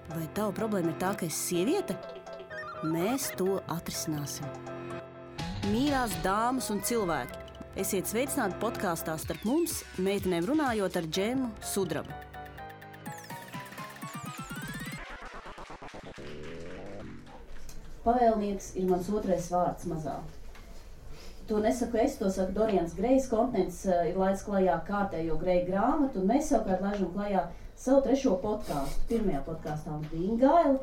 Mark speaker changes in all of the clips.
Speaker 1: Vai tava problēma ir tā, ka esi sieviete? Mēs to atrisināsim. Mīļās dāmas un cilvēki, esiet sveicināti podkāstā Starp mums, meitenēm runājot ar Džemu Sudrabu. Pavēlnieks ir mans otrais vārds mazā. To nesaku es, to saka Dorians Grejs. Kontinents ir laids klajā kārtējo Greja grāmatu, un mēs savukārt laižam klajā savu trešo podkāstu. Pirmajā podkāstā mums bija Ingaila.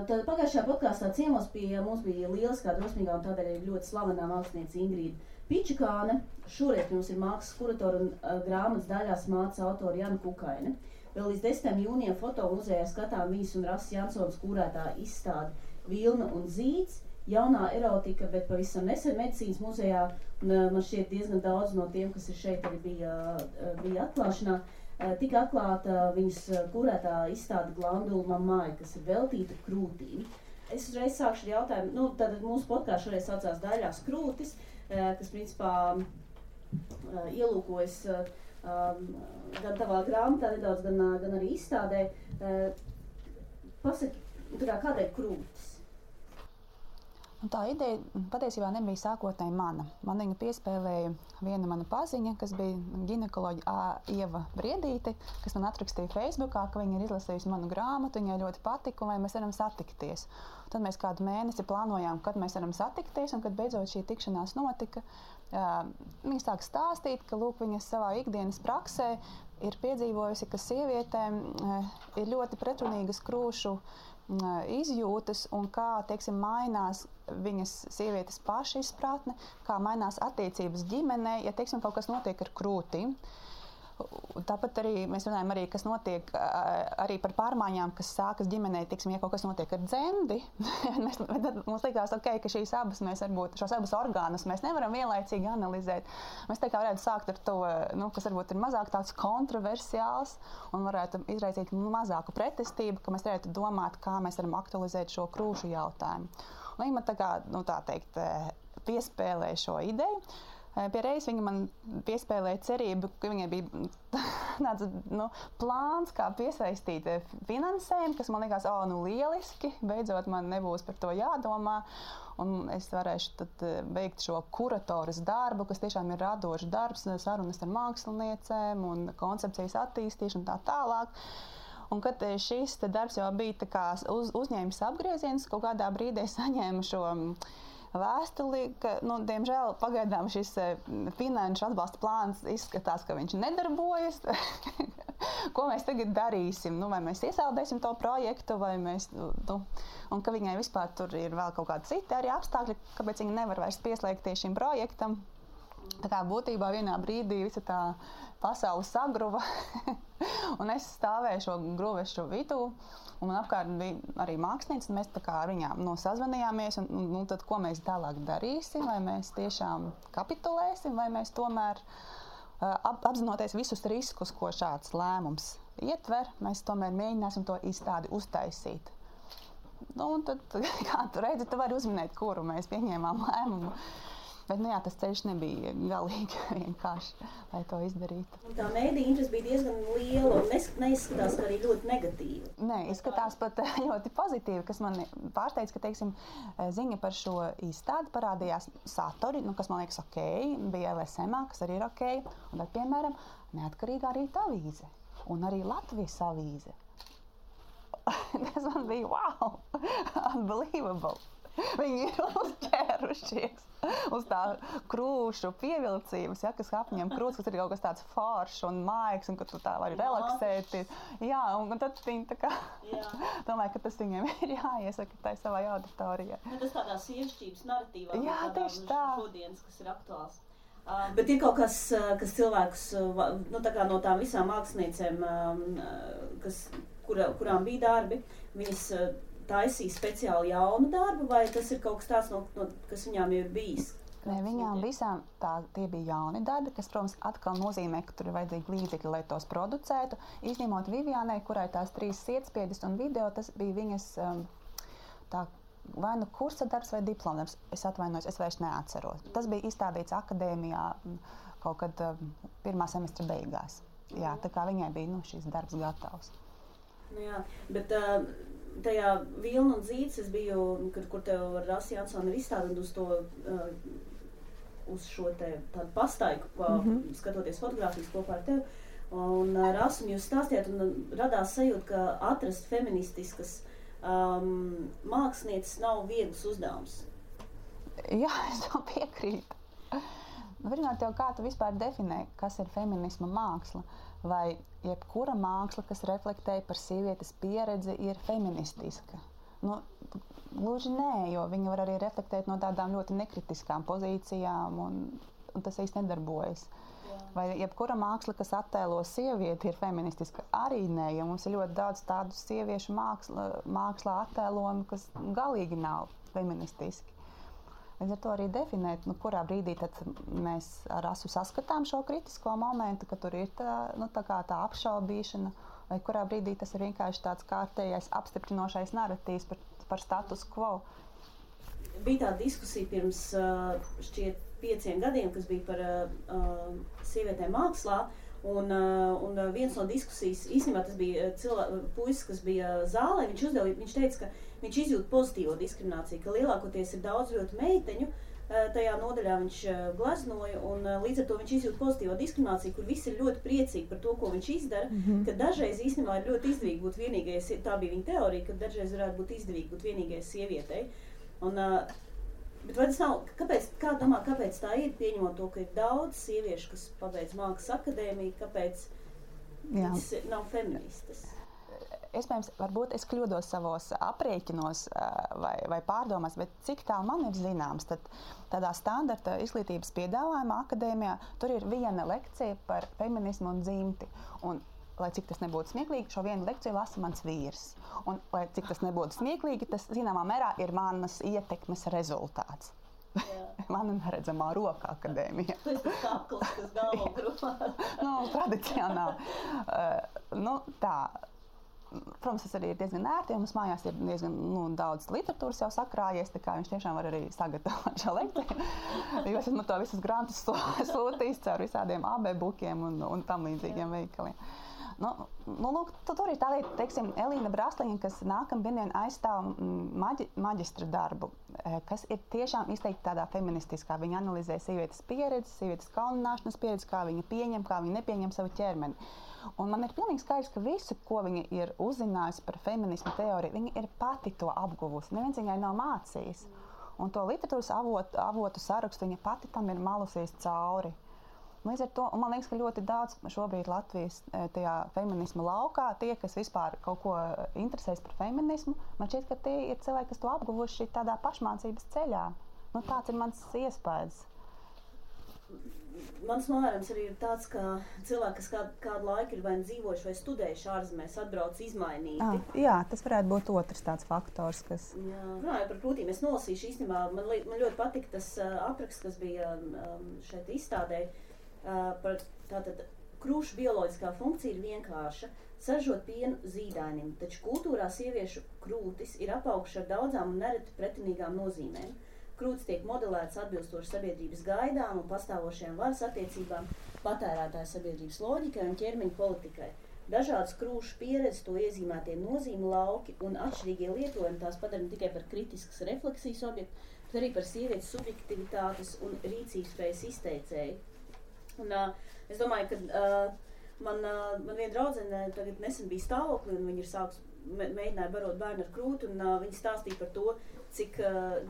Speaker 1: Tad pagājušajā podkāstā ciemos pie mums bija lieliskā, drosmīgā un tādēļ ir ļoti slavenā māksliniece Ingrīda Pičikāne. Šoreiz mums ir mākslas kuratora un grāmatas daļās māca autora Jana Kukaine. Vēl līdz 10. jūnijam fotomuzejā skatām viņas un Rasas Jansons kūrētā izstāde Vilna un zīds. Jaunā erotika, bet pavisam nesen medicīnas muzejā, un man šķiet diezgan daudz no tiem, kas ir šeit, arī bija atklāšanā, tika atklāta viņas kurētā izstāde Glandula mammai, kas ir veltīta krūtīm. Es uzreiz sākšu ar jautājumu, tad mūsu podkāsts šoreiz saucās Daļās krūtis, kas principā ielūkojas gan tavā grāmatā nedaudz, gan arī izstādē. Pasaki, kādēļ krūtis?
Speaker 2: Un tā ideja patiesībā nebija sākotnēji mana. Man viņu piespēlēja viena mana paziņa, kas bija ginekoloģa Ieva Briedīte, kas man atrakstīja Facebookā, ka viņa ir izlasījusi manu grāmatu, viņai ļoti patika, un vai mēs varam satikties. Tad mēs kādu mēnesi plānojām, kad mēs varam satikties, un kad beidzot šī tikšanās notika, viņa sāk stāstīt, ka lūk, viņa savā ikdienas praksē ir piedzīvojusi, ka sievietēm ir ļoti pretrunīgas krūšu izjūtas un kā, teiksim, mainās viņas sievietes paša izpratne, kā mainās attiecības ģimenē, ja, teiksim, kaut kas notiek ar krūtīm. Tāpat arī mēs runājam arī, kas notiek arī par pārmaiņām, kas sākas ģimenē, teiksim, ja kaut kas notiek ar dzemdi. Mums likās, ka šīs abas mēs varbūt, šos abus orgānus mēs nevaram vienlaicīgi analizēt. Mēs tā kā varētu sākt ar to, kas varbūt ir mazāk tāds kontroversiāls un varētu izraisīt mazāku pretestību, ka mēs varētu domāt, kā mēs varam aktualizēt šo krūšu jautājumu. Un viņa man tā kā, tā teikt, piespēlēja šo ideju. Pie reizes viņa man piespēlēja cerību, ka viņai bija tāds plāns, kā piesaistīt finansējumu, kas man likās, lieliski, beidzot man nebūs par to jādomā, un es varēšu tad veikt šo kuratoras darbu, kas tiešām ir radošs darbs, sarunas ar māksliniecēm un koncepcijas attīstīšanu tā tālāk. Un kad šis darbs jau bija tā kā uzņēmis apgrieziens, kaut kādā brīdī saņēmu šo vēstuli, ka, diemžēl, pagaidām šis finanšu atbalsta plāns izskatās, ka viņš nedarbojas. Ko mēs tagad darīsim? Vai mēs iesaldēsim to projektu, vai mēs, un ka viņai vispār tur ir vēl kaut kādi citi arī apstākļi, kāpēc viņa nevar vairs pieslēgties šim projektam. Tā kā būtībā vienā brīdī visa tā pasaule sagruva, un es stāvēju šo gruvešu vidū, un man apkārt bija arī mākslinieci, un mēs tā kā ar viņām sazvanījāmies, un tad ko mēs tālāk darīsim, vai mēs tiešām kapitulēsim, vai mēs tomēr apzinoties visus riskus, ko šāds lēmums ietver, mēs tomēr mēģināsim to izstādi uztaisīt. Un tad, kā tu redzi, tu vari uzminēt, kuru mēs pieņēmām lēmumu. Bet, tas ceļš nebija galīgi vienkārši, lai to izdarītu.
Speaker 1: Un tā mēdīja interese bija diezgan liela un neizskatās, ka arī ļoti negatīva.
Speaker 2: Nē, izskatās pat ļoti pozitīvi, kas man pārsteidz, ka, teiksim, ziņa par šo izstādi parādījās satori, kas man liekas ok, bija LSM, kas arī ir ok, un tad, piemēram, Neatkarīgā rīta avīze un arī Latvijas avīze. Tas man bija wow, unbelievable. Viņi ir uzķērušies uz tā krūšu pievilcības, kas apņem krūtis, kas ir kaut kas tāds foršs un maigs, un ka tu tā vari relaksēties. Jā, un tad viņi tā kā domāju, ka tas viņiem ir jāiesaka tai savai auditorijai.
Speaker 1: Tas tādā sievišķības narratīvā,
Speaker 2: tieši tā.
Speaker 1: Šodienas, kas ir aktuāls. Bet ir kaut kas cilvēkus, tā kā no tām visām māksliniecēm, kurām bija darbi, viņas taisīja speciāli jaunu darbu, vai tas ir kaut kas tāds, kas viņām jau ir bijis?
Speaker 2: Nē, viņām visām tie bija jauni darbi, kas, protams, atkal nozīmē, ka tur ir vajadzīgi līdzekļi, lai tos producētu. Izņemot Vivianai, kurai tās 3 sietspiedes un video, tas bija viņas vai nu kursa darbs vai diplomdarbs. Es atvainojos, es vairs neatceros. Tas bija izstādīts akadēmijā kaut kad 1. semestra beigās. Jā, tā kā viņai bija šis darbs gatavs.
Speaker 1: Jā, bet tajā Vilna un Zīds es biju, kur tev ar Rasi Jansonu ir izstādīt uz šo te tādu pastaigu, skatoties fotogrāfijas kopā ar tevi. Un Rasu un jūs stāstījāt, un radās sajūta, ka atrast feministiskas mākslinieces nav viegls uzdevums.
Speaker 2: Jā, es to piekrītu. Pirmkārt, kā tu vispār definē, kas ir feminisma māksla? Vai jebkura māksla, kas reflektē par sievietes pieredzi, ir feministiska? Gluži nē, jo viņa var arī reflektēt no tādām ļoti nekritiskām pozīcijām, un tas īsti nedarbojas. Jā. Vai jebkura māksla, kas attēlo sievieti, ir feministiska? Arī nē, jo mums ir ļoti daudz tādu sieviešu mākslā attēlojumu, kas galīgi nav feministiski. Līdz ar to arī definēt, kurā brīdī tad mēs ar Rasu saskatām šo kritisko momentu, ka tur ir tā apšaubīšana, vai kurā brīdī tas ir vienkārši tāds kārtējais apstiprinošais narratīvs par status quo.
Speaker 1: Bija tā diskusija pirms šķiet 5 gadiem, kas bija par sievietēm mākslā, un viens no diskusijas, īstenībā tas bija puisis, kas bija zālē, viņš teica, ka viņš izjūt pozitīvo diskrimināciju, ka lielākoties ir daudz ļoti meiteņu, tajā nodaļā viņš gleznoja, un līdz ar to viņš izjūt pozitīvo diskrimināciju, kur visi ir ļoti priecīgi par to, ko viņš izdara, ka dažreiz īstenībā ir ļoti izdevīgi būt vienīgajai, tā bija viņa teorija, ka dažreiz varētu būt izdevīgi būt vienīgajai sievietei. Bet vai tas nav, kāpēc tā ir, pieņemot to, ka ir daudz sieviešu, kas pabeidz mākslas akadēmiju, kāpēc viņas nav feministas?
Speaker 2: Iespējams, varbūt es kļūdos savos aprēķinos vai pārdomās, bet cik tā man ir zināms, tad tādā standarta izglītības piedāvājumā akadēmijā tur ir viena lekcija par feminismu un dzimti. Un, lai cik tas nebūtu smieklīgi, šo vienu lekciju lasa mans vīrs. Un, lai cik tas nebūtu smieklīgi, tas zināmā mērā ir manas ietekmes rezultāts. Mana neredzamā roka akadēmija.
Speaker 1: Tas ir kakls, kas galvo grupā.
Speaker 2: Tradicionāli. Tā. Protams, tas arī ir diezgan ērti, jo mums mājās ir diezgan daudz literatūras jau sakrājies, tā kā viņš tiešām var arī sagatavot šo lekciju. Jo es esmu to visus grantus sūtījis caur visādiem AB-bukiem un tam līdzīgiem veikaliem. Tur ir tā lieta, teiksim, Elīna Brasliņa, kas nākamdien aizstāv maģistra darbu, kas ir tiešām izteikti tādā feministiskā. Viņa analizē sievietes pieredzi, sievietes kaunināšanas pieredzi, kā viņa pieņem, kā viņa nepieņem savu ķermeni. Un man ir pilnīgi skaidrs, ka visu, ko viņa ir uzzinājusi par feminismu teoriju, viņa ir pati to apguvusi. Neviens viņai nav mācījis. Un to literatūras avotu sarakstu viņa pati tam ir malusies cauri. Līdz ar to, un man liekas, ka ļoti daudz šobrīd Latvijas tajā feminisma laukā, tie, kas vispār kaut ko interesēs par feminismu, man šķiet, ka tie ir cilvēki, kas to apguvuši tādā pašmācības ceļā. Tāds ir mans iespējas.
Speaker 1: Mans novērojums arī ir tāds, ka cilvēki, kas kādu laiku ir vai dzīvojuši vai studējuši ārzemēs, atbrauc izmainīti.
Speaker 2: Jā, tas varētu būt otrs tāds faktors, kas...
Speaker 1: Runājot par krūtīm, es nolasīšu īstenībā, man ļoti patika tas apraksts, kas bija šeit izstādē. Tātad krūšu bioloģiskā funkcija ir vienkārša – saražot pienu zīdainim, taču kultūrā sieviešu krūtis ir apauguši ar daudzām un nereti pretinīgām nozīmēm. Krūtis tiek modelēts atbilstoši sabiedrības gaidām un pastāvošajām varas attiecībām, patērētāju sabiedrības loģikai un ķermeņa politikai. Dažādas krūšu pieredzes, to iezīmētie nozīme lauki un atšķirīgie lietojumi tās padara ne tikai par kritiskas refleksijas objektu, bet arī par sievietes subjektivitātes un rīcības spējas izteicēju. Un, es domāju, ka man viena draudzene tagad nesen bija stāvoklī, un viņa mēģināja barot bērnu ar krūti, un viņa stāstīja par to, cik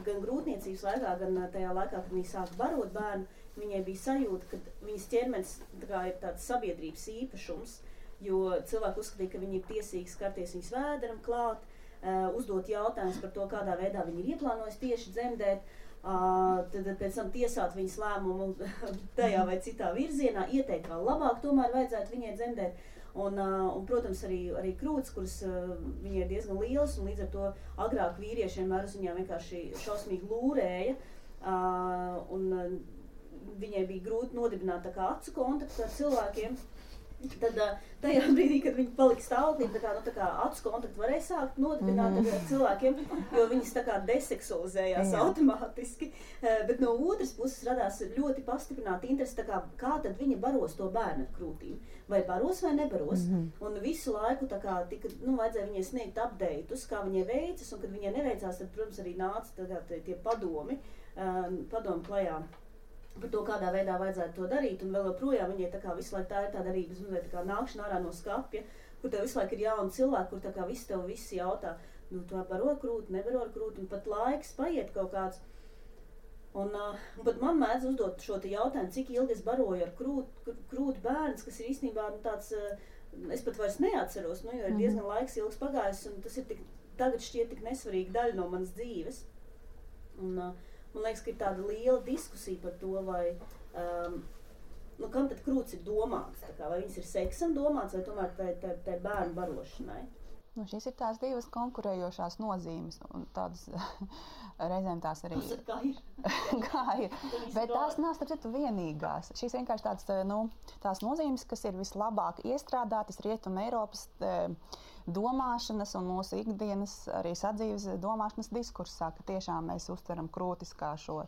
Speaker 1: gan grūtniecības laikā, gan tajā laikā, kad viņa sāka barot bērnu, viņai bija sajūta, ka viņas ķermenis ir tāds sabiedrības īpašums, jo cilvēki uzskatīja, ka viņi ir tiesīgi skarties viņas vēderam klāt, uzdot jautājumus par to, kādā veidā viņi ir ieplānojis tieši dzemdēt, tad pēc tam tiesāt viņas lēmumu tajā vai citā virzienā, ieteikt vēl labāk, tomēr vajadzētu viņai dzemdēt. Un protams, arī krūtis, kuras viņai ir diezgan lielas, un līdz ar to agrāk vīrieši vienmēr uz viņām vienkārši šausmīgi lūrēja, un viņai bija grūti nodibināt tā kā acu kontaktu ar cilvēkiem. Tad tajā brīdī, kad viņi palika stāvoklī, tā kā acu kontaktu varēja sākt nodibināt ar cilvēkiem, jo viņas tā kā deseksualizējās automātiski. Bet no otras puses radās ļoti pastiprināta interese, tā kā tad viņa baros to bērnu ar krūtīm. Vai baros vai nebaros. Un visu laiku tā kā tika, vajadzēja viņai sniegt update'us, kā viņai veicas, un kad viņai neveicās, tad, protams, arī nāca tie padomi klajā par to, kādā veidā vajadzētu to darīt, un vēl joprojām viņai tā kā visu laiku tā ir tāda arī, tā kā nākšana ārā no skapja, kur tev visu laiku ir jauni cilvēki, kur tā kā visi jautā, tu baro krūti, nebaro krūti, un pat laiks paiet kaut kāds. Un pat man mēdz uzdot šo te jautājumu, cik ilgi es baroju ar krūti bērns, kas ir īstenībā tāds, es pat vairs neatceros, jo ir diezgan laiks ilgs pagājis, un tas ir tagad šķiet tik nesvarīga daļa no manas dzīves. Un, man liekas, ka ir tāda liela diskusija par to, vai, kam tad krūts ir domāts, vai viņas ir seksam domāts, vai tomēr tai bērnu barošanai.
Speaker 2: Šīs ir tās divas konkurējošās nozīmes, un tādas reizēm tās arī
Speaker 1: kā ir.
Speaker 2: Bet tās nav, starp citu, vienīgās. Šīs vienkārši tās nozīmes, kas ir vislabāk iestrādātas Rietuma Eiropas domāšanas un mūsu ikdienas arī sadzīves domāšanas diskursā, ka tiešām mēs uztveram krūtis kā šo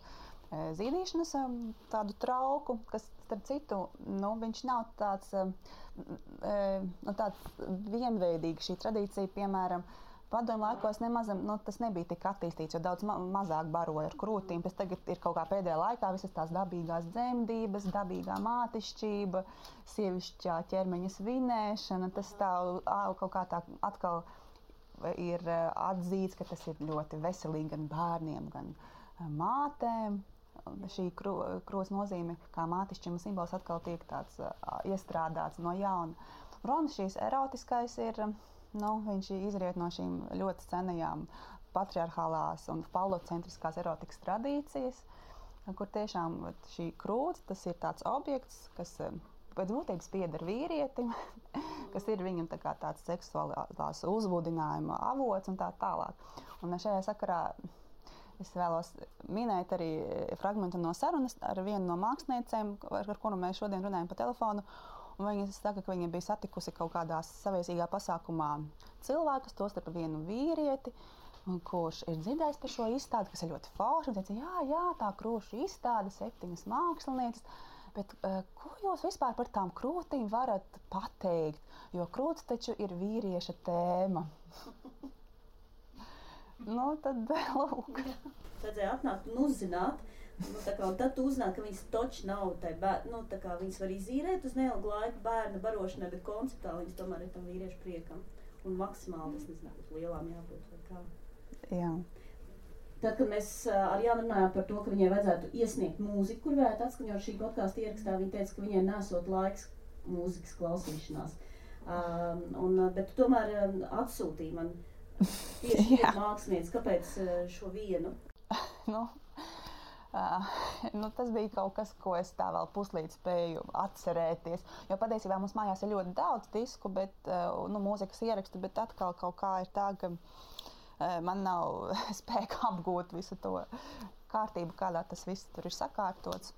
Speaker 2: zīdīšanas tādu trauku, kas, starp citu, viņš nav tāds vienveidīgs. Šī tradīcija, piemēram, padomju laikos tas nebija tik attīstīts, jo daudz mazāk baroja ar krūtīm. Pēc tagad ir kaut kā pēdējā laikā visas tās dabīgās dzemdības, dabīgā mātišķība, sievišķā ķermeņa svinēšana. Tas tā kaut kā tā atkal ir atzīts, ka tas ir ļoti veselīgi gan bērniem, gan mātēm. Šī krūts nozīme kā mātišķima simbols atkal tiek tāds iestrādāts no jauna. Protams, šīs erotiskais ir, viņš izriet no šīm ļoti senajām patriarchālās un falocentriskās erotikas tradīcijas, kur tiešām šī krūts, tas ir tāds objekts, kas pēc būtības pieder vīrietim, kas ir viņam tā kā tāds seksuālās uzbudinājuma avots un tā tālāk. Un šajā sakarā es vēlos minēt arī fragmentu no sarunas ar vienu no māksliniecēm, ar kuru mēs šodien runājam pa telefonu. Un viņa saka, ka viņa bija satikusi kaut kādā saviesīgā pasākumā cilvēkus, tostarp vienu vīrieti, kurš ir dzirdējis par šo izstādi, kas ir ļoti forši. Un teica, jā, tā krūšu izstāde, 7 mākslinieces. Bet ko jūs vispār par tām krūtīm varat pateikt? Jo krūts taču ir vīrieša tēma. Tad lūk.
Speaker 1: Vajadzēja atnākt un uzzināt, un tad tu uzzināt, ka viņas toči nav viņas var izīrēt uz neilgu laiku bērna barošanai, bet konceptuāli viņas tomēr ir tam vīriešu priekam. Un maksimāli, es nezinu, būtu lielām jābūt vai kā.
Speaker 2: Jā.
Speaker 1: Tad, kad mēs ar Jānu runājām par to, ka viņai vajadzētu iesniegt mūziku, kur varētu atskaņot šī podkāsta ierakstā, viņa teica, ka viņai nesot laiks mūzikas klausīšanās. Bet tu tomēr atsūtīji man tieši mākslinieci, kāpēc šo vienu?
Speaker 2: Tas bija kaut kas, ko es tā vēl puslīdz spēju atcerēties. Jo patiesībā mums mājās ir ļoti daudz disku, bet, mūzikas ierakstu, bet atkal kaut kā ir tā, ka man nav spēka apgūt visu to kārtību, kādā tas viss tur ir sakārtots.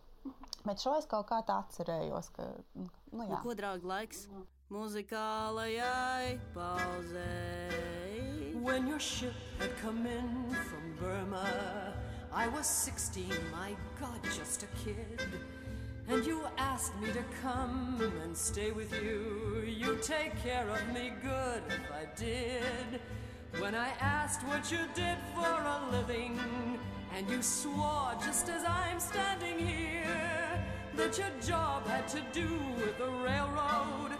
Speaker 2: Bet šo es kaut kā tā atcerējos, ka, jā.
Speaker 1: Ko, draugi, laiks muzikālajai pauzei?
Speaker 3: When your ship had come in from Burma, I was 16, my God, just a kid. And you asked me to come and stay with you. You take care of me good if I did. When I asked what you did for a living, and you swore just as I'm standing here, that your job had to do with the railroad,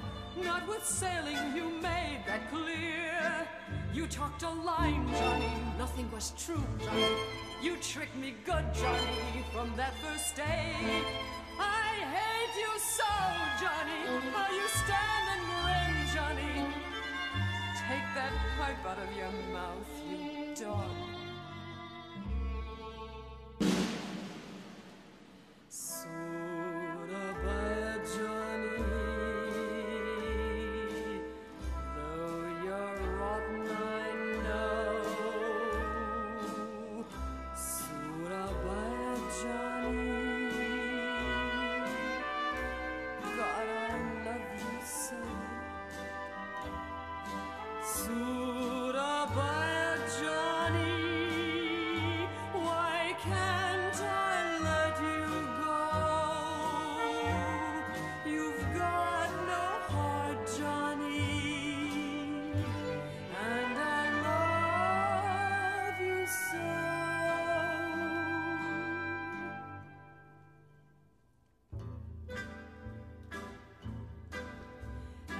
Speaker 3: not with sailing, you made that clear. You talked a line, Johnny, nothing was true, Johnny. You tricked me good, Johnny, from that first day. I hate you so, Johnny, how you stand and grin, Johnny. Take that pipe out of your mouth, you dog. Surabaya, Johnny, though you're rotten, I know. Surabaya, Johnny, God, I love you so.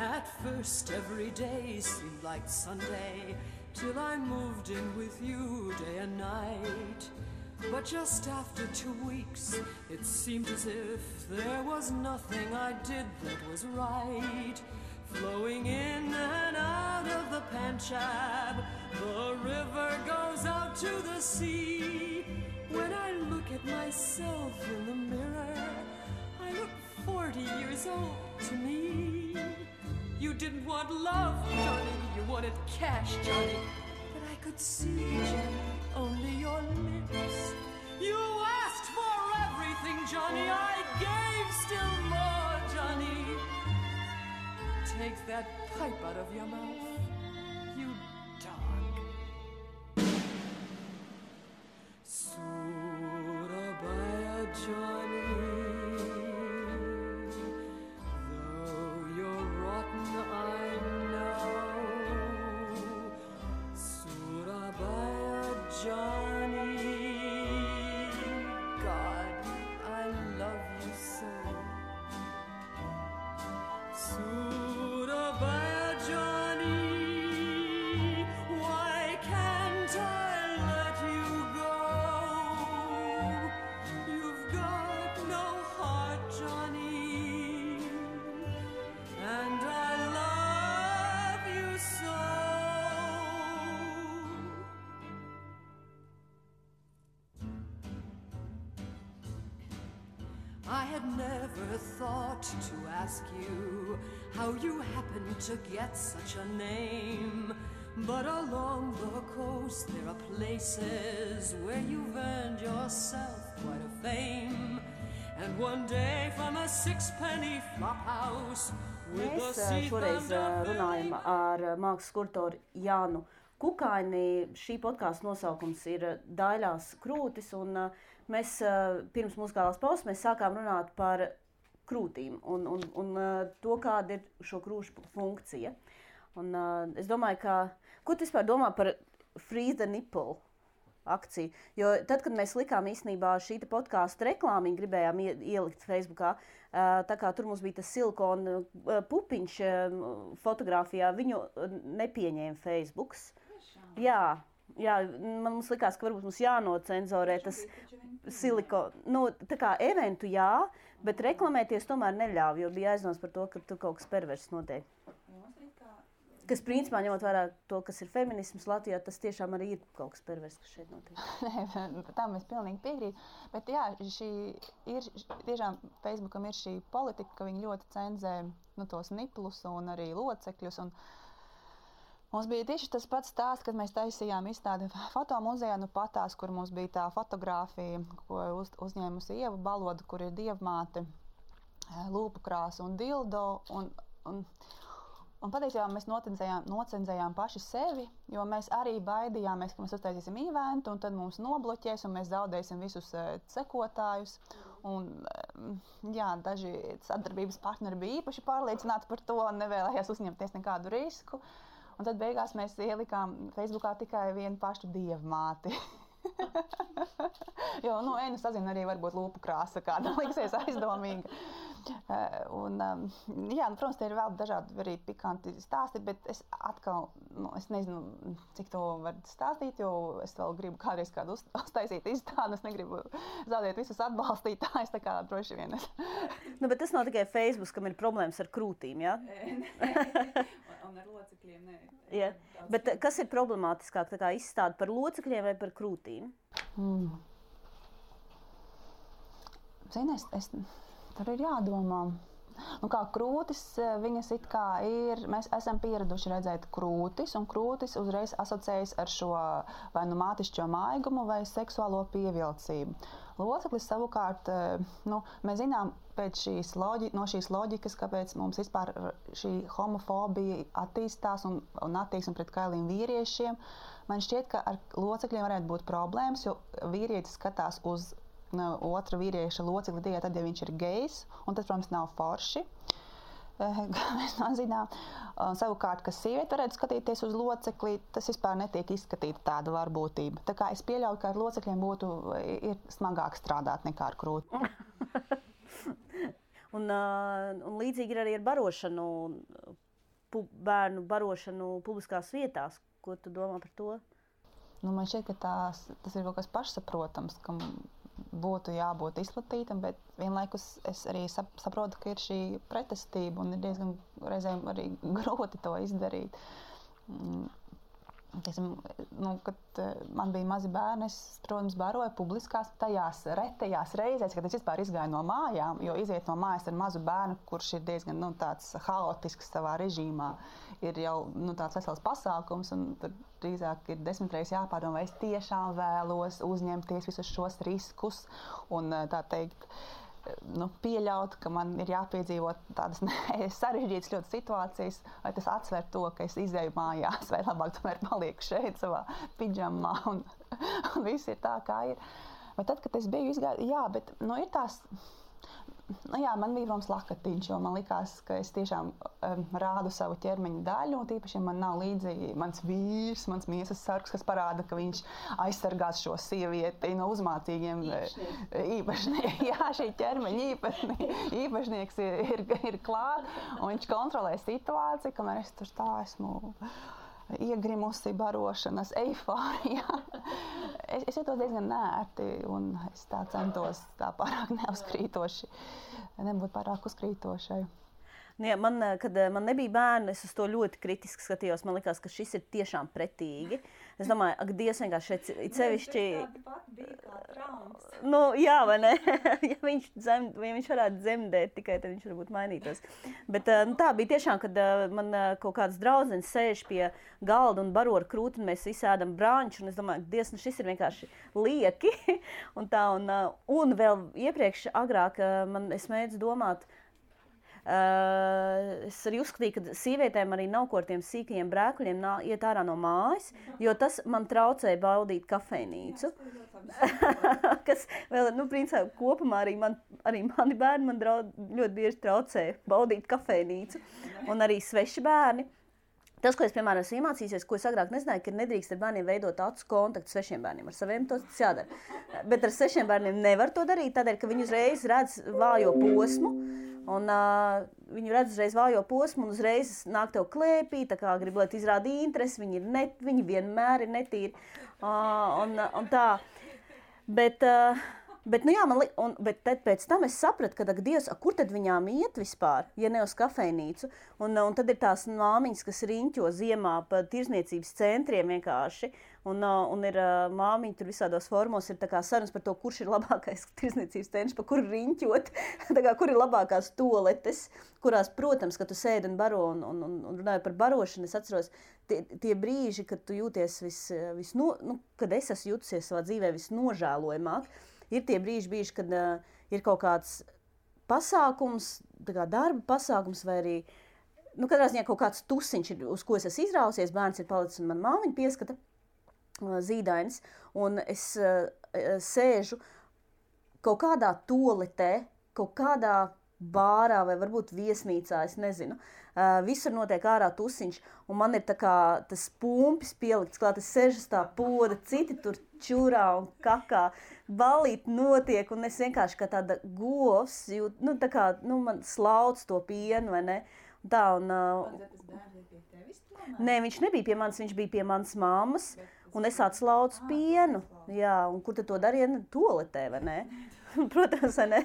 Speaker 3: At first every day seemed like Sunday, till I moved in with you day and night. But just after 2 weeks, it seemed as if there was nothing I did that was right. Flowing in and out of the Panchab, the river goes out to the sea. When I look at myself in the mirror, I look 40 years old to me. You didn't want love, Johnny, you wanted cash, Johnny. But I could see, Johnny, only your lips. You asked for everything, Johnny, I gave still more, Johnny. Take that pipe out of your mouth, you dog. Surabaya, Johnny, though you're rotten, I know. Surabaya, Johnny, God, I love you so. Surabaya, Johnny, why can't I let you go? You've got no heart, Johnny, and I love you so. I had never thought to ask you how you happened to get such a name. But along the coast there are places where you've earned yourself quite a fame. And one day from a sixpenny flophouse with the
Speaker 1: Mēs
Speaker 3: sea
Speaker 1: šoreiz runājam ar mākslas kuratoru Jānu Kukaini. Šī podkāsta nosaukums ir Daļās krūtis, un mēs pirms muzikālās pauzes mēs sākām runāt par krūtīm un to, kāda ir šo krūšu funkcija. Un es domāju, ko tu vispār domā par Freeze the Nipple akciju? Jo tad, kad mēs likām īstenībā šī podkāstu reklāmiņu, gribējām ielikt Facebookā, tā kā tur mums bija tas silikona pupiņš fotografijā, viņu nepieņēma Facebooks. Jā, mums likās, ka varbūt mums jānocenzorē tas silikona. Nu, tā kā eventu jā, bet reklamēties tomēr neļāva, jo bija aizdoms par to, ka tur kaut kas perverss notiek. Kas principā, ņemot vērā to, kas ir feminisms Latvijā, tas tiešām arī ir kaut kas perverss, kas šeit notiek.
Speaker 2: Tam es pilnīgi piekrītu. Bet jā, tiešām Facebookam ir šī politika, ka viņi ļoti cenzē tos niplus un arī locekļus. Un mums bija tieši tas pats stāsts, kad mēs taisījām izstādi fotomuzejā, patās, kur mums bija tā fotogrāfija, ko uzņēmusi Ieva Baloda, kur ir dievmāte, lūpu krāsa un dildo. Un patiesībā mēs nocenzējām paši sevi, jo mēs arī baidījāmies, ka mēs uztaisīsim eventu, un tad mums nobloķēs, un mēs zaudēsim visus sekotājus. Un, jā, daži sadarbības partneri bija īpaši pārliecināti par to un nevēlējās uzņemties nekādu risku. Un tad beigās mēs ielikām Facebookā tikai vienu pašu dievmāti. Jo, sazina arī varbūt lūpu krāsa, kāda liksies aizdomīga. Protams, te ir vēl dažādi arī pikanti stāsti, bet es atkal, es nezinu, cik to var stāstīt, jo es vēl gribu kādreiz kādu uztaisīt izstādi, es negribu zaudēt visus atbalstītājus, tā kā droši vien es.
Speaker 1: Bet tas nav tikai Facebook, kam ir problēmas ar krūtīm, jā?
Speaker 2: Un ar locekļiem, nē.
Speaker 1: Jā, bet kas ir problemātiskāk, tā kā izstāde par locekļiem vai par krūtīm?
Speaker 2: Zini, tur ir jādomā. Kā krūtis, viņas it kā ir, mēs esam pieraduši redzēt krūtis, un krūtis uzreiz asociējas ar šo vai mātišķo maigumu vai seksuālo pievilcību. Loceklis savukārt, mēs zinām pēc no šīs loģikas, kāpēc mums vispār šī homofobija attīstās un attieksme pret kailiem vīriešiem. Man šķiet, ka ar locekļiem varētu būt problēmas, jo vīrietis skatās uz otra vīrieša locekli tikai tad, ja viņš ir gejs, un tas, protams, nav forši. Mēs zinām. Savukārt, ka sieviete varētu skatīties uz locekli, tas vispār netiek izskatīta tāda varbūtība. Tā kā es pieļauju, ka ar locekļiem ir smagāk strādāt nekā ar krūti.
Speaker 1: Un līdzīgi ir arī ar barošanu. bērnu barošanu publiskās vietās. Ko tu domā par to?
Speaker 2: Nu, man šķiet, ka tas ir kaut kas pašsaprotams, kam būtu jābūt izplatītam, bet vienlaikus es arī saprotu, ka ir šī pretestība un ir diezgan reizēm arī grūti to izdarīt. Kad man bija mazi bērni, es, protams, baroju publiskās tajās retajās reizēs, kad es vispār izgāju no mājām, jo iziet no mājas ar mazu bērnu, kurš ir diezgan tāds haotisks savā režīmā, ir jau tāds vesels pasākums, un tur drīzāk ir 10 reizes jāpārdomā, vai es tiešām vēlos uzņemties visus šos riskus un tā teikt, pieļaut, ka man ir jāpiedzīvot tādas sarežģītas ļoti situācijas, vai tas atsver to, ka es izēju mājās, vai labāk tomēr palieku šeit savā pidžamā un viss ir tā, kā ir. Bet tad, kad es biju izgāju, bet ir tās, man bija protams lakatiņš, jo man likās, ka es tiešām rādu savu ķermeņa daļu, un tīpaši man nav līdzi mans vīrs, mans miesas sargs, kas parāda, ka viņš aizsargās šo sievieti no uzmācīgiem īpašniekiem. Jā, šī ķermeņa īpašnieks ir klāt, un viņš kontrolē situāciju, kamēr es tur tā esmu iegrimusi barošanas eifārijā. Es jūtos diezgan nērti, un es tā centos tā pārāk neuzkrītoši, nebūt pārāk uzkrītošai.
Speaker 1: Jā, kad man nebija bērni, es uz to ļoti kritiski skatījos. Man likās, ka šis ir tiešām pretīgi. Es domāju, ak, Dievs vienkārši šeit sevišķi...
Speaker 2: Tāda pat bija kā traumas.
Speaker 1: Jā, vai ne? Ja viņš varētu dzemdēt, tikai tad viņš varbūt mainītos. Bet tā bija tiešām, kad man kaut kāds draudzenis sēž pie galda un baro ar krūti, un mēs visi ēdam brāņu, un es domāju, Dievs, šis ir vienkārši lieki. Un vēl iepriekš agrāk es mēdzu domāt, es arī uzskatīju, ka sievietēm arī nav ko ar tiem sīkajiem brēkuļiem iet ārā no mājas, jo tas man traucēja baudīt kafejnīcu. Kas vēl, principā, kopumā arī mani bērni man ļoti bieži traucēja baudīt kafejnīcu un arī sveši bērni. Tas, ko es, piemēram, esmu iemācījusies, ko es agrāk nezināju, ka nedrīkst ar bērniem veidot acu kontaktu svešiem bērniem. Ar saviem tas jādara. Bet ar svešiem bērniem nevar to darīt, tādēļ, ka viņi uzreiz redz vājo posmu. Un viņi redz uzreiz vājo posmu un uzreiz nāk tev klēpī, tā kā grib, lai tu izrādi interesi, viņi vienmēr ir netīri. Un tā. Bet tad pēc tam es sapratu, ka, Dievs, kur tad viņām iet vispār, ja ne uz kafejnīcu? Un tad ir tās māmiņas, kas riņķo ziemā pa tirzniecības centriem vienkārši. Un ir māmiņi tur visādos formos, ir tā kā sarunas par to, kurš ir labākais tirzniecības centrs, pa kuru riņķot, tā kā kur ir labākās toaletes, kurās, protams, ka tu sēdi un baro un runāju par barošanu. Es atceros tie brīži, kad tu jūties kad es esmu jutusies savā dzīvē visnožēlojamāk. Ir tie brīži, kad ir kaut kāds pasākums, darba pasākums vai arī, katrā ziņā kaut kāds tusiņš, uz ko es esmu izrausies, bērns ir palicis un man māmiņa pieskata zīdainis, un es sēžu kaut kādā toaletē, kaut kādā bārā vai varbūt viesnīcā, es nezinu. Visur notiek ārā tusiņš, un man ir tā kā tas pumpis pielikts klāt, es sēžu tā poda, citi tur čurā un kakā, balīt notiek, un es vienkārši kā tāda govs, man slauc to pienu, vai ne? Nē, viņš nebija pie manis, viņš bija pie manas mammas, un es atslaucu pienu. Jā, un kur tad to darīja? Toaletē, vai ne? Protams, vai ne?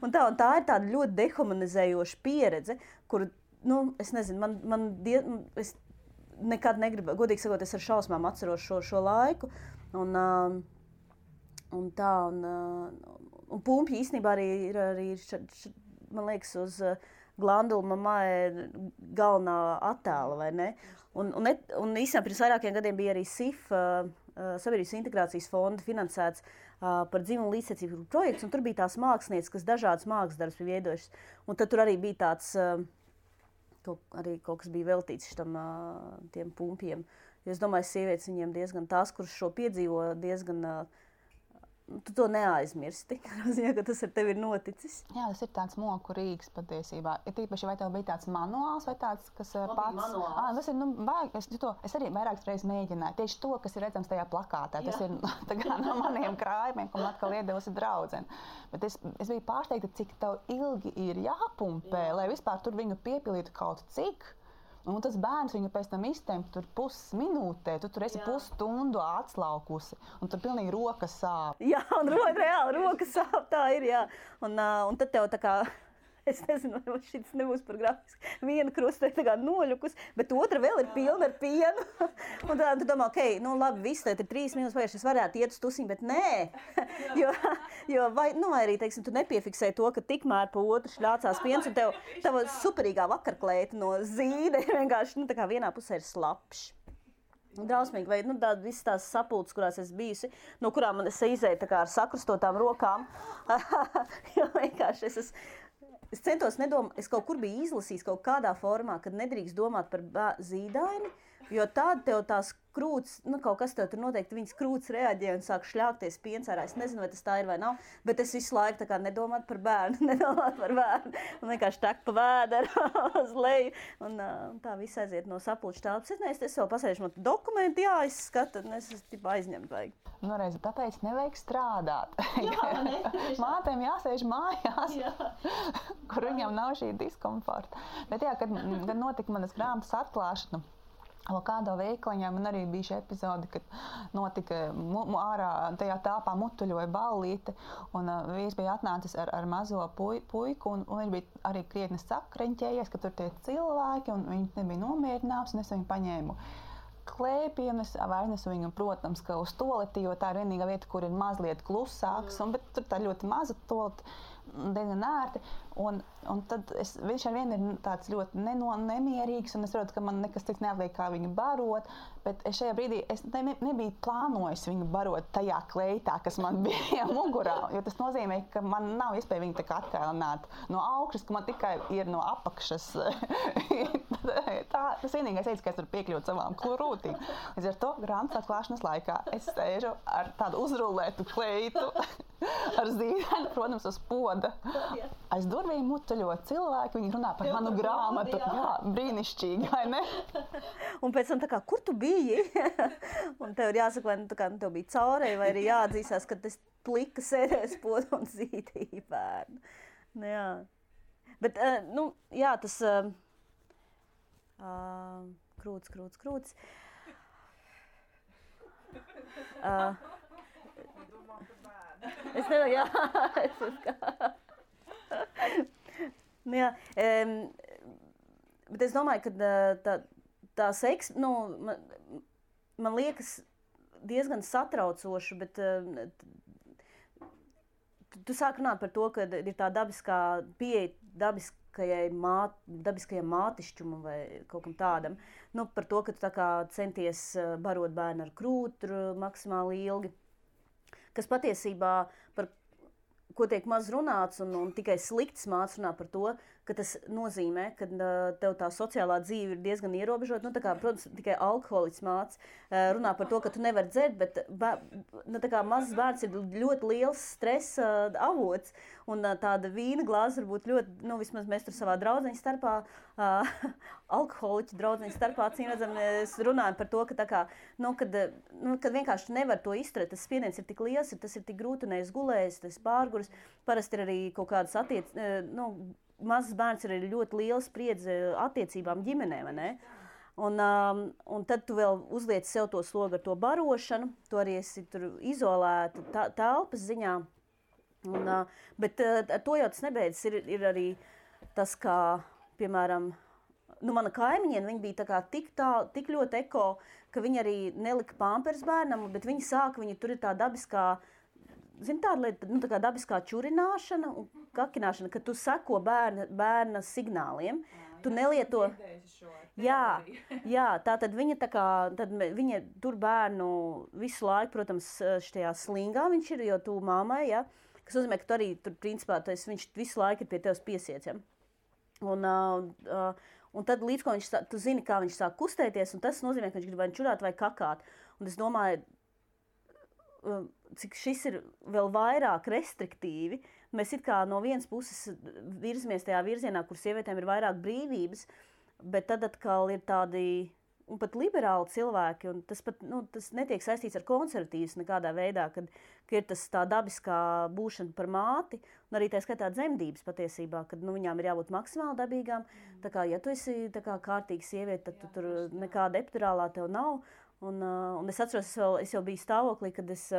Speaker 1: Un tā ir tāda ļoti dehumanizējoša pieredze, kur, es nezinu, es nekad negribu, godīgi sakot, es ar šausmām atceros šo laiku, un pumpji īstenībā arī ir, man liekas, uz Glandula mamai galvenā attēla, vai ne? Un īstenībā pirms vairākiem gadiem bija arī SIF, Sabiedrības integrācijas fonda finansēts par dzimumu līdztiesību projekts, un tur bija tās mākslinieces, kas dažādas mākslas darbus bija veidojušas. Un tad tur arī bija tāds, kaut kas bija veltīts tiem pumpiem. Jo es domāju, sievietes viņiem diezgan tās, kuras šo piedzīvo, diezgan... Tu to neaizmirsti, ka tas ar tevi ir noticis.
Speaker 2: Jā, tas ir tāds moku rīks patiesībā. Ir tīpaši, vai tev bija tāds manuāls vai tāds, kas pats... Tas ir, es arī vairākas reizes mēģināju. Tieši to, kas ir redzams tajā plakātā. Tas ir no maniem krājumiem, ko man atkal iedevusi draudzene. Bet es biju pārsteigta, cik tev ilgi ir jāpumpē, lai vispār tur viņu piepilītu kaut cik. Un tas bērns viņu pēc tam iztemp tur pusminūtē, tu tur esi pusstundu atslaukusi, un tur pilnīgi rokas sāp.
Speaker 1: Jā, un reāli rokas sāp, tā ir, jā. Un tad tev tā kā... Es nezinu, vai šis nebūs par grafisku. Viena krusta ir tā kā noļukus, bet otra vēl ir pilna ar pienu. Un tad tu domā, nu labi, viss, tad ir 3 minūtes pagājuši, es varētu iet uz tusiņu, bet nē. Vai arī, teiksim, tu nepiefiksēji to, ka tikmēr pa otru šļācās piens, un tava superīgā vakarklēta no zīde ir vienkārši, tā kā vienā pusē ir slapšs. Drausmīgi, vai visas tās sapulces, kurās es bijusi, no kurām man es izēju tā kā ar sakrustotām rokām. Jo vienkārši es centos nedomāt, es kaut kur biju izlasījis kaut kādā formā, kad nedrīkst domāt par zīdaini, jo tāda tev tās krūts, kaut kas tev tur noteikti viņas krūts reaģē un sāk šļākties piens ārā. Es nezinu, vai tas tā ir vai nav, bet es visu laiku tā kā nedomāt par bērnu, un vienkārši tak pa vēderu uz leju, un tā viss aiziet no sapulču telpas. Es vēl pasēžu, man dokumenti jāizskata, un es aizņemt vajag.
Speaker 2: Reiz, tāpēc nevajag strādāt.
Speaker 1: Jā, ne?
Speaker 2: Mātēm jāsēž mājās, kur viņam nav šī diskomforta. Bet kad notika manas grāmatas atklāšana, kādā veikaliņā man arī bija šī epizode, kad notika ārā tajā tāpā mutuļoja ballīte, un vīrs bija atnācis ar mazo puiku, un viņš bija arī krietni sakreņķējies, ka tur tie cilvēki, un viņš nebija nomierināts, un es viņu paņēmu klēpienu, es aiznesu viņu, protams, ka uz toleti, jo tā ir vienīgā vieta, kur ir mazliet klusāks, bet tur tā ļoti maza toleti, diezgan ērti, un tad viņš ar vienu ir tāds ļoti nemierīgs, un es redzu, ka man nekas cits neatliek, kā viņu barot, bet šajā brīdī es nebiju plānojis viņu barot tajā kleitā, kas man bija mugurā, jo tas nozīmē, ka man nav iespēja viņu tā kā atkailināt no augšas, ka man tikai ir no apakšas. Tas vienīgais veids, ka es varu piekļūt savām krūtīm. Līdz ar to grāmatas atklāšanas laikā es sēžu ar tādu uzrullētu kleitu, ar zīdaini, protams, uz poda. Aiz durvīm mutuļo cilvēki, viņi runā par manu grāmatu. Jā, brīnišķīgi, vai ne?
Speaker 1: Un pēc tam tā kā, kur tu biji? Un tev ir jāsaka, vai tev bija caurēji, vai arī jāatzīstās, ka tas plika sēdēs podu un zīdīja bērnu. Jā. Bet, jā, tas krūts. Es nevaru, jā, bet es domāju, ka tā seks, man liekas diezgan satraucoši, bet tu sāk runāt par to, ka ir tā dabiskā pieeja dabiskajam mātišķumam vai kaut kam tādam. Par to, ka tu tā kā centies barot bērnu ar krūtu maksimāli ilgi. Kas patiesībā, par ko tiek maz runāts, un tikai slikts mācības runā par to, ka tas nozīmē, ka tev tā sociālā dzīve ir diezgan ierobežota. Protams, tikai alkoholiķis mācības runā par to, ka tu nevari dzert, bet mazs bērns ir ļoti liels stresa avots. Un tāda vīna glāze var būt ļoti, vismaz mēs tur savā draudzeņu starpā, alkoholiķu draudzeņu starpā, mēs runājam par to, ka kad vienkārši nevar to izturēt, tas spiediens ir tik liels, tas ir tik grūti, un es gulēju, tas pārgurs, parasti ir arī kaut kādas mazs bērns ir ļoti liela spriedze attiecībām ģimenē, vai ne? Un tad tu vēl uzliec sev to slogu ar to barošanu, tu arī esi tur izolēta telpas ziņā. Bet ar to jau tas nebeidzas. Ir arī tas, kā, piemēram, mana kaimiņiene, viņa bija tā kā tik ļoti eko, ka viņa arī nelika pampers bērnam, bet viņa sāka, tur ir tā dabiskā, tāda lieta, tā kā dabiskā čurināšana un kakināšana, ka tu seko bērna signāliem. Tu nelieto. Jā, tātad viņa viņa tur bērnu visu laiku, protams, šajā slingā viņš ir, jo tu mammai, ja, kas nozīmē, ka tu arī tur principā viņš visu laiku ir pie tevis piesiets, ja. Un tad līdz ko tu zini, kā viņš sāk kustēties, un tas nozīmē, ka viņš grib vai čurāt vai kakāt. Un es domāju, cik šis ir vēl vairāk restriktīvi. Mēs it kā no vienas puses virzamies tajā virzienā, kur sievietēm ir vairāk brīvības, bet tad atkal ir tādi un pat liberāli cilvēki, un tas pat, tas netiek saistīts ar konservatīvas nekādā veidā, ka ir tas tā dabiskā būšana par māti, un arī tā skaitā dzemdības patiesībā, kad viņām ir jābūt maksimāli dabīgām. Tā kā, ja tu esi tā kā kārtīga sieviete, tad tu tur nekāda epidurālā tev nav. Un es atceros, es jau biju stāvoklī, kad es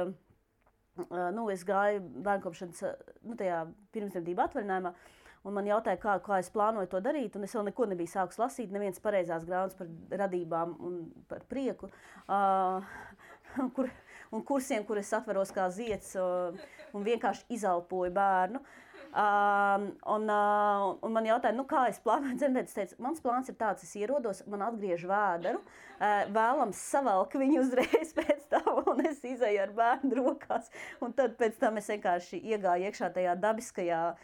Speaker 1: gāju bērnkopšanas tajā pirmsdzemdību atvaļinājumā, un man jautāja, kā es plānoju to darīt, un es vēl neko nebiju sākus lasīt, neviens pareizās grāmatas par radībām un par prieku, un kursiem, kur es atveros kā zieds un vienkārši izelpoju bērnu. Un man jautāja, kā es plānoju dzemdēt. Es teicu, mans plāns ir tāds, es ierodos, man atgriež vēderu, vēlams savelk viņu uzreiz pēc tam, un es izēju ar bērnu rokās. Un tad pēc tam es vienkārši iegāju iekšā tajā dabiskajā,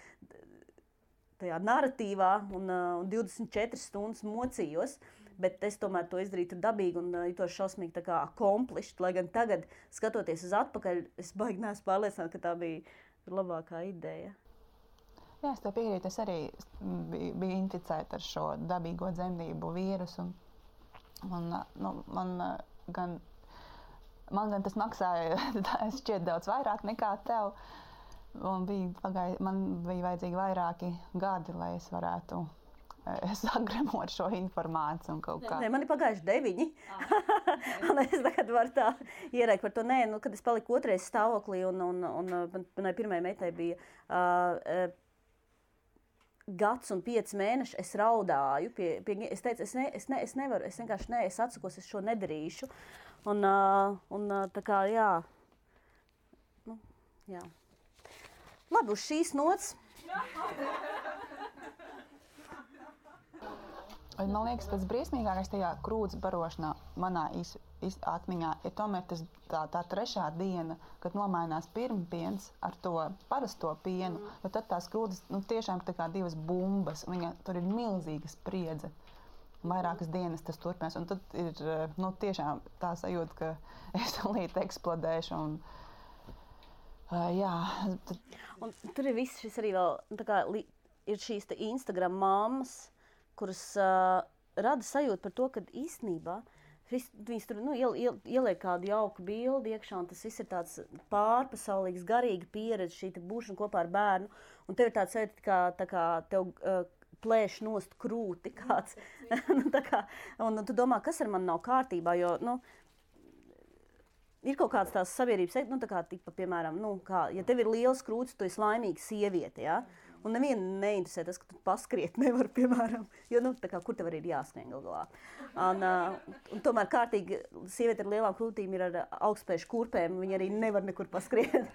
Speaker 1: tajā narratīvā un 24 stundas mocījos, bet es tomēr to izdarītu dabīgi un jutos šausmīgi tā kā accomplished, lai gan tagad, skatoties uz atpakaļ, es baigi neesmu pārliecināta, ka tā bija labākā ideja.
Speaker 2: Jā, es tev piekrītu, es arī biju inficēta ar šo dabīgo dzemdību vīrusu. Man gan tas maksāja šķiet daudz vairāk nekā tev. Man bija vajadzīgi vairāki gadi, lai es varētu sagremot šo informāciju un kaut kā.
Speaker 1: Nē, man ir pagājuši 9. Un es tagad varu tā ierēkt par to. Nē, kad es paliku otrais stāvoklī un manai pirmajai meitai bija gads un 5 mēneši, es raudāju. Es teicu, es nevaru, es vienkārši es atsakos, es šo nedarīšu. Un tā kā, jā. Jā. Labi, uz šīs nots.
Speaker 2: Man liekas, tas briesmīgākais tajā krūts barošanā manā atmiņā ir tomēr tā 3. diena, kad nomainās pirmpiens ar to parasto pienu, jo tad tās krūtis tiešām ir tā kā 2 bumbas, tur ir milzīga spriedze. Vairākas dienas tas turpinās, un tad ir tiešām tā sajūta, ka es līdz eksplodēšu. Jā.
Speaker 1: Un tur ir viss šis arī vēl, tā kā ir šīs Instagram mammas, kuras rada sajūtu par to, ka īstenībā viņas tur ieliek kādu jauku bildi iekšā, un tas viss ir tāds pārpasaulīgs, garīga pieredze, šī būšana kopā ar bērnu, un tev ir tāds sajūta, tā kā tev plēš nost krūti kāds. Un tu domā, kas ar mani nav kārtībā, jo, ir kaut kādas tās sabiedrības, tā kā tipa, piemēram, ja tev ir liels krūtis, tu esi laimīga sieviete, ja? Un nevienu neinteresē tas, ka tu paskriet nevar, piemēram, jo, tā kā, kur tev arī ir jāskrien galā. Un tomēr kārtīgi sieviete ar lielām krūtīm ir ar augstspēju kurpēm, viņa arī nevar nekur paskriet.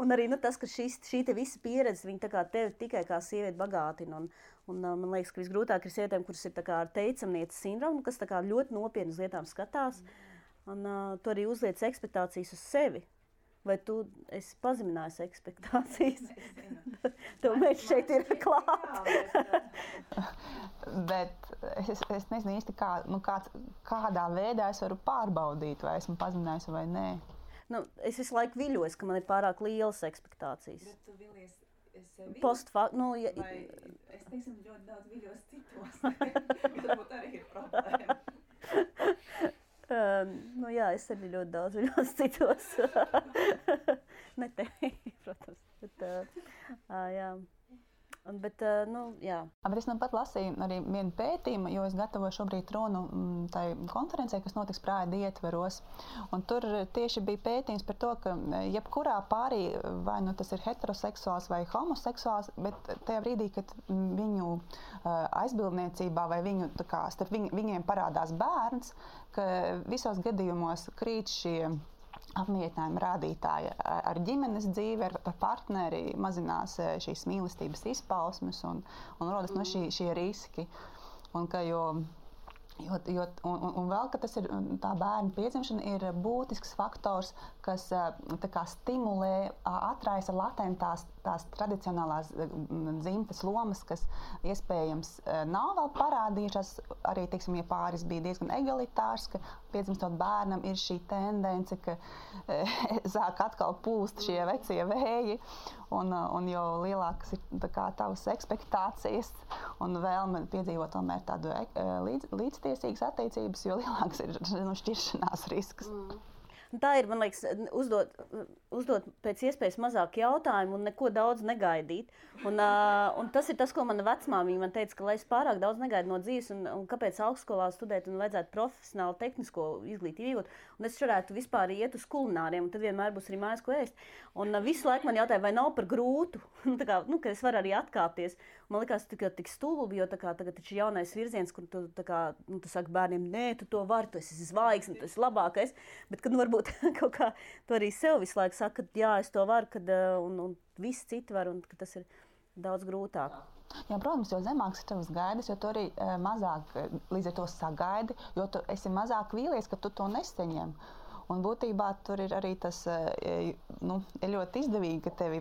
Speaker 1: Un arī tas, ka šī te visa pieredze, viņa tā kā tevi tikai kā sieviete bagātina. Un man liekas, ka visgrūtāk ir sievietēm, kuras ir tā kā ar teicamnieces sindromu, kas tā kā ļoti nopietni uz lietām skatās. Un tu arī uzliec ekspektācijas uz sevi. Vai tu esi pazeminājusi ekspektācijas? Tev mēs šeit ir klāt.
Speaker 2: Bet es nezinu īsti, kādā veidā es varu pārbaudīt, vai esmu pazeminājusi vai nē.
Speaker 1: Es visu laiku viļos, ka man ir pārāk lielas ekspektācijas.
Speaker 4: Bet tu vilies sevi?
Speaker 2: Es
Speaker 4: teiksim, ļoti daudz viļos citos. Varbūt arī ir problēma.
Speaker 1: Jā, es arī ļoti daudz viļos citos. Ne tevi, protams. Jā. Bet jā.
Speaker 2: Bet es pat lasīju arī vienu pētījumu, jo es gatavoju šobrīd runu tai konferencē, kas notiks Prāda ietveros. Un tur tieši bija pētījums par to, ka jebkurā pārī, vai tas ir heteroseksuāls vai homoseksuāls, bet tajā brīdī, kad viņu aizbildniecībā vai starp viņiem parādās bērns, ka visos gadījumos krīt šie apmierinājumu rādītāji ar ģimenes dzīvi, ar partneri, mazinās šīs mīlestības izpausmes un rodas šie riski. Un vēl, ka tas ir tā bērna piedzimšana ir būtisks faktors, kas stimulē, atraisa latentās tās tradicionālās dzimtes lomas, kas iespējams nav vēl parādījušās. Arī, teiksim, ja pāris bija diezgan egalitārs, ka piedzimstot bērnam ir šī tendence, ka sāk atkal pūst šie vecie vēji, un jo lielākas ir tavas ekspektācijas un vēlme piedzīvot tomēr tādu līdztiesību, līdztiesīgas attiecības, jo lielāks ir šķiršanās risks.
Speaker 1: Tā ir, man liekas, uzdot pēc iespējas mazāk jautājumu un neko daudz negaidīt. Un tas ir tas, ko mana vecmāmiņa man teica, ka lai es pārāk daudz negaidu no dzīves un kāpēc augstskolā studēt un vajadzētu profesionāli tehnisko izglītību iegūt. Un es varētu vispār iet uz kulināriem, un tad vienmēr būs arī mājās, ko ēst. Un visu laiku man jautāja, vai nav par grūtu, ka es varu arī atkāpties. Man likās tik stulbi, jo tagad taču jaunais virziens, kur tu saki bērniem, nē, tu to vari, tu esi zvaigzne, tu esi labākais. Bet, kad varbūt kaut kā tu arī sev visu laiku saka, ka jā, es to varu, un visi citi var, un ka tas ir daudz grūtāk.
Speaker 2: Jā, protams, jo zemāks ir tavas gaidas, jo tu arī mazāk līdz ar to sagaidi, jo tu esi mazāk vīlies, ka tu to nesaņem. Un būtībā tur ir arī tas, ir ļoti izdevīgi, ka tevi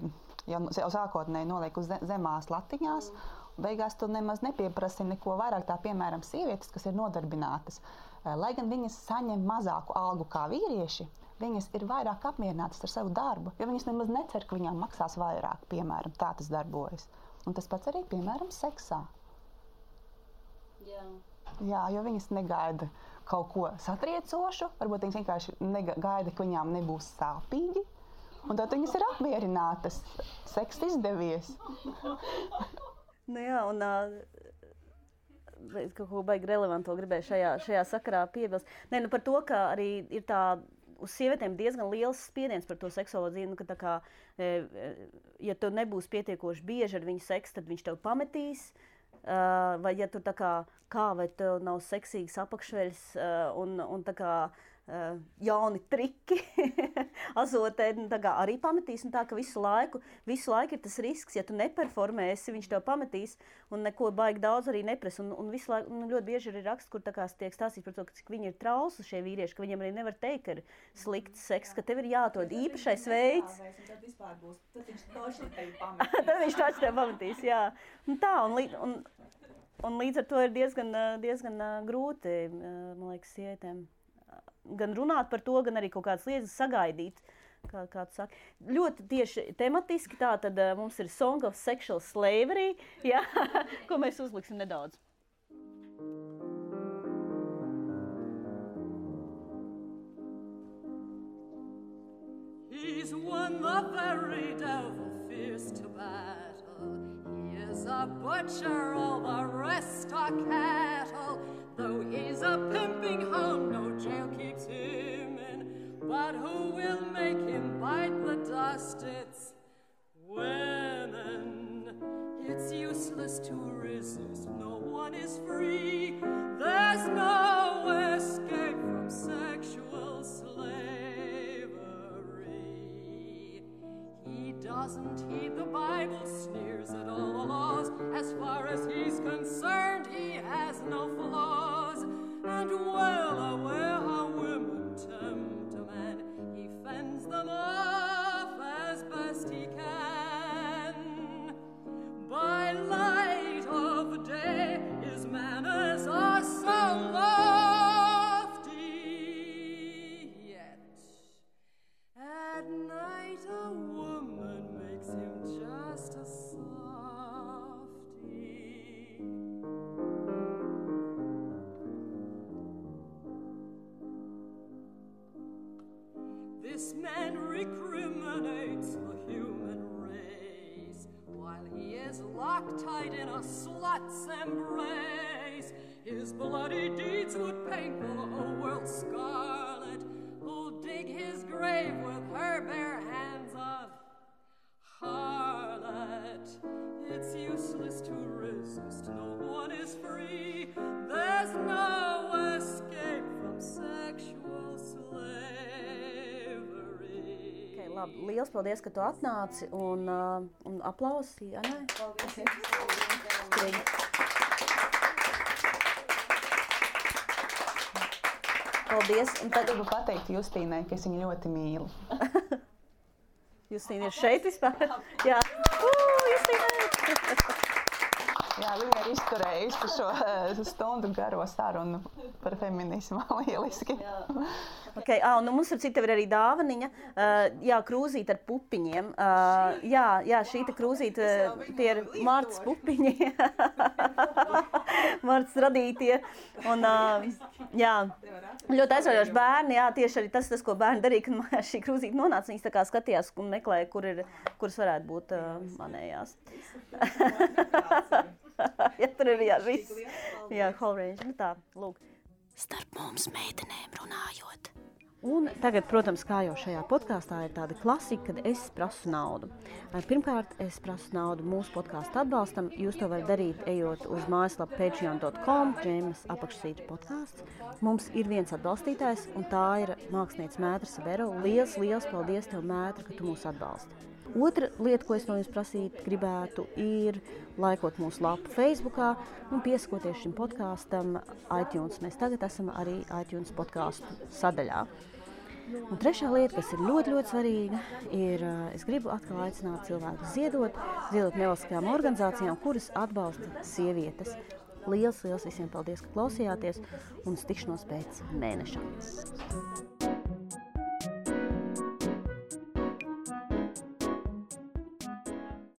Speaker 2: jau sākotnēji noliek uz zemās latiņās, beigās tu nemaz nepieprasi neko vairāk, tā piemēram sievietes, kas ir nodarbinātas. Lai gan viņas saņem mazāku algu kā vīrieši, viņas ir vairāk apmierinātas ar savu darbu, jo viņas nemaz necer, ka viņām maksās vairāk, piemēram, tā tas darbojas. Un tas pats arī, piemēram, seksā. Jā, jo viņas negaida kaut ko satriecošu, varbūt viņas vienkārši gaida, ka viņām nebūs sāpīgi, un tad viņas ir apmierinātas. Seks izdevies.
Speaker 1: Jā, un kaut ko baigi relevanto gribēju šajā sakarā piebilst. Par to, ka arī ir tā uz sievietēm diezgan liels spiediens par to seksuālo dzīvi, ka tā kā, ja tu nebūs pietiekoši bieži ar viņu seksu, tad viņš tev pametīs, vai ja tu tā kā vai tev nav seksīgas apakšveļas un tā kā jauni triki azotē, tā kā arī pametīs, un tā, ka visu laiku ir tas risks, ja tu neperformēsi, viņš tev pametīs, un neko baigi daudz arī nepres, un visu laiku, ļoti bieži ir raksts, kur tā kā tiek stāstīts par to, cik viņi ir trausli šie vīrieši, ka viņiem arī nevar teikt, ka ir slikts seks, ka tev ir jāatrod īpašais veids.
Speaker 4: Tad vispār būs, tad viņš toši tevi pametīs.
Speaker 1: Tad viņš toši tevi pametīs, jā. Un tā, un līdz ar to ir diezgan grūti, man liekas, sievietēm gan runāt par to, gan arī kaut kādas lietas sagaidīt, kā tu saki. Ļoti tieši tematiski tā, tad mums ir Song of Sexual Slavery, jā, ko mēs uzliksim nedaudz.
Speaker 3: He's won the very devil fears to battle. He is a butcher, all the rest are cattle. Though he's a pimping hound, no jail keeps him in. But who will make him bite the dust? It's women. It's useless to resist, no one is free. There's no escape from sexual slavery. He doesn't heed the Bible, sneers at all the laws. As far as he's concerned, he has no flaws. And well aware how women tempt a man, he fends them off as best he can. By light of day, his manners are so lofty, yet at night a woman makes him just a softy. This man recriminates the human race while he is locked-tight in a slut's embrace. His bloody deeds would paint the whole world scarlet, who'll dig his grave with her bare hands of harlot. It's useless to resist, no one is free. There's no escape from sexual slavery.
Speaker 1: Okay, labi, liels paldies, ka tu atnāci, un aplausi, jā, nē?
Speaker 4: Paldies.
Speaker 1: Paldies. Un tad
Speaker 2: Gribu pateikt Justīnai, ka es viņu ļoti mīlu.
Speaker 1: Justīna ir šeit vispār? Jā. Justīna!
Speaker 2: Jā, viņa ir izturējusi šo stundu garo sarunu par feminismu. Lieliski.
Speaker 1: Okay, un mums ar citu ir arī dāvaniņa. Jā, krūzīte ar pupiņiem. Jā, šī te krūzīte, tie ir Martas pupiņi. Martas radītie. Un, jā, ļoti aizraujoši bērni. Jā, tieši arī tas, ko bērni darīja, kad mājās šī krūzīte nonāca. Viņas tā kā skatījās un meklēja, kuras varētu būt manējās. Ja tur ir viss. Jā, whole range. Nu tā, lūk. Starp mums meitenēm runājot. Un tagad, protams, kā jau šajā podkāstā ir tāda klasika, kad es prasu naudu. Pirmkārt, es prasu naudu mūsu podkāstu atbalstam. Jūs to varat darīt, ejot uz mājaslapu patreon.com, Džeimas apakšsvītra podkāsts. Mums ir viens atbalstītājs, un tā ir māksliniece Mētra Sabero. Liels paldies tev, Mētra, ka tu mūs atbalsti. Otra lieta, ko es no jums prasīt gribētu, ir laikot mūsu lapu Facebookā un piesakoties šim podkāstam iTunes. Mēs tagad esam arī iTunes podkāstu sadaļā. Un trešā lieta, kas ir ļoti svarīga, ir, es gribu atkal aicināt cilvēkus ziedot nevalstiskajām organizācijām, kuras atbalsta sievietes. Liels visiem paldies, ka klausījāties, un uz tikšanos pēc mēneša.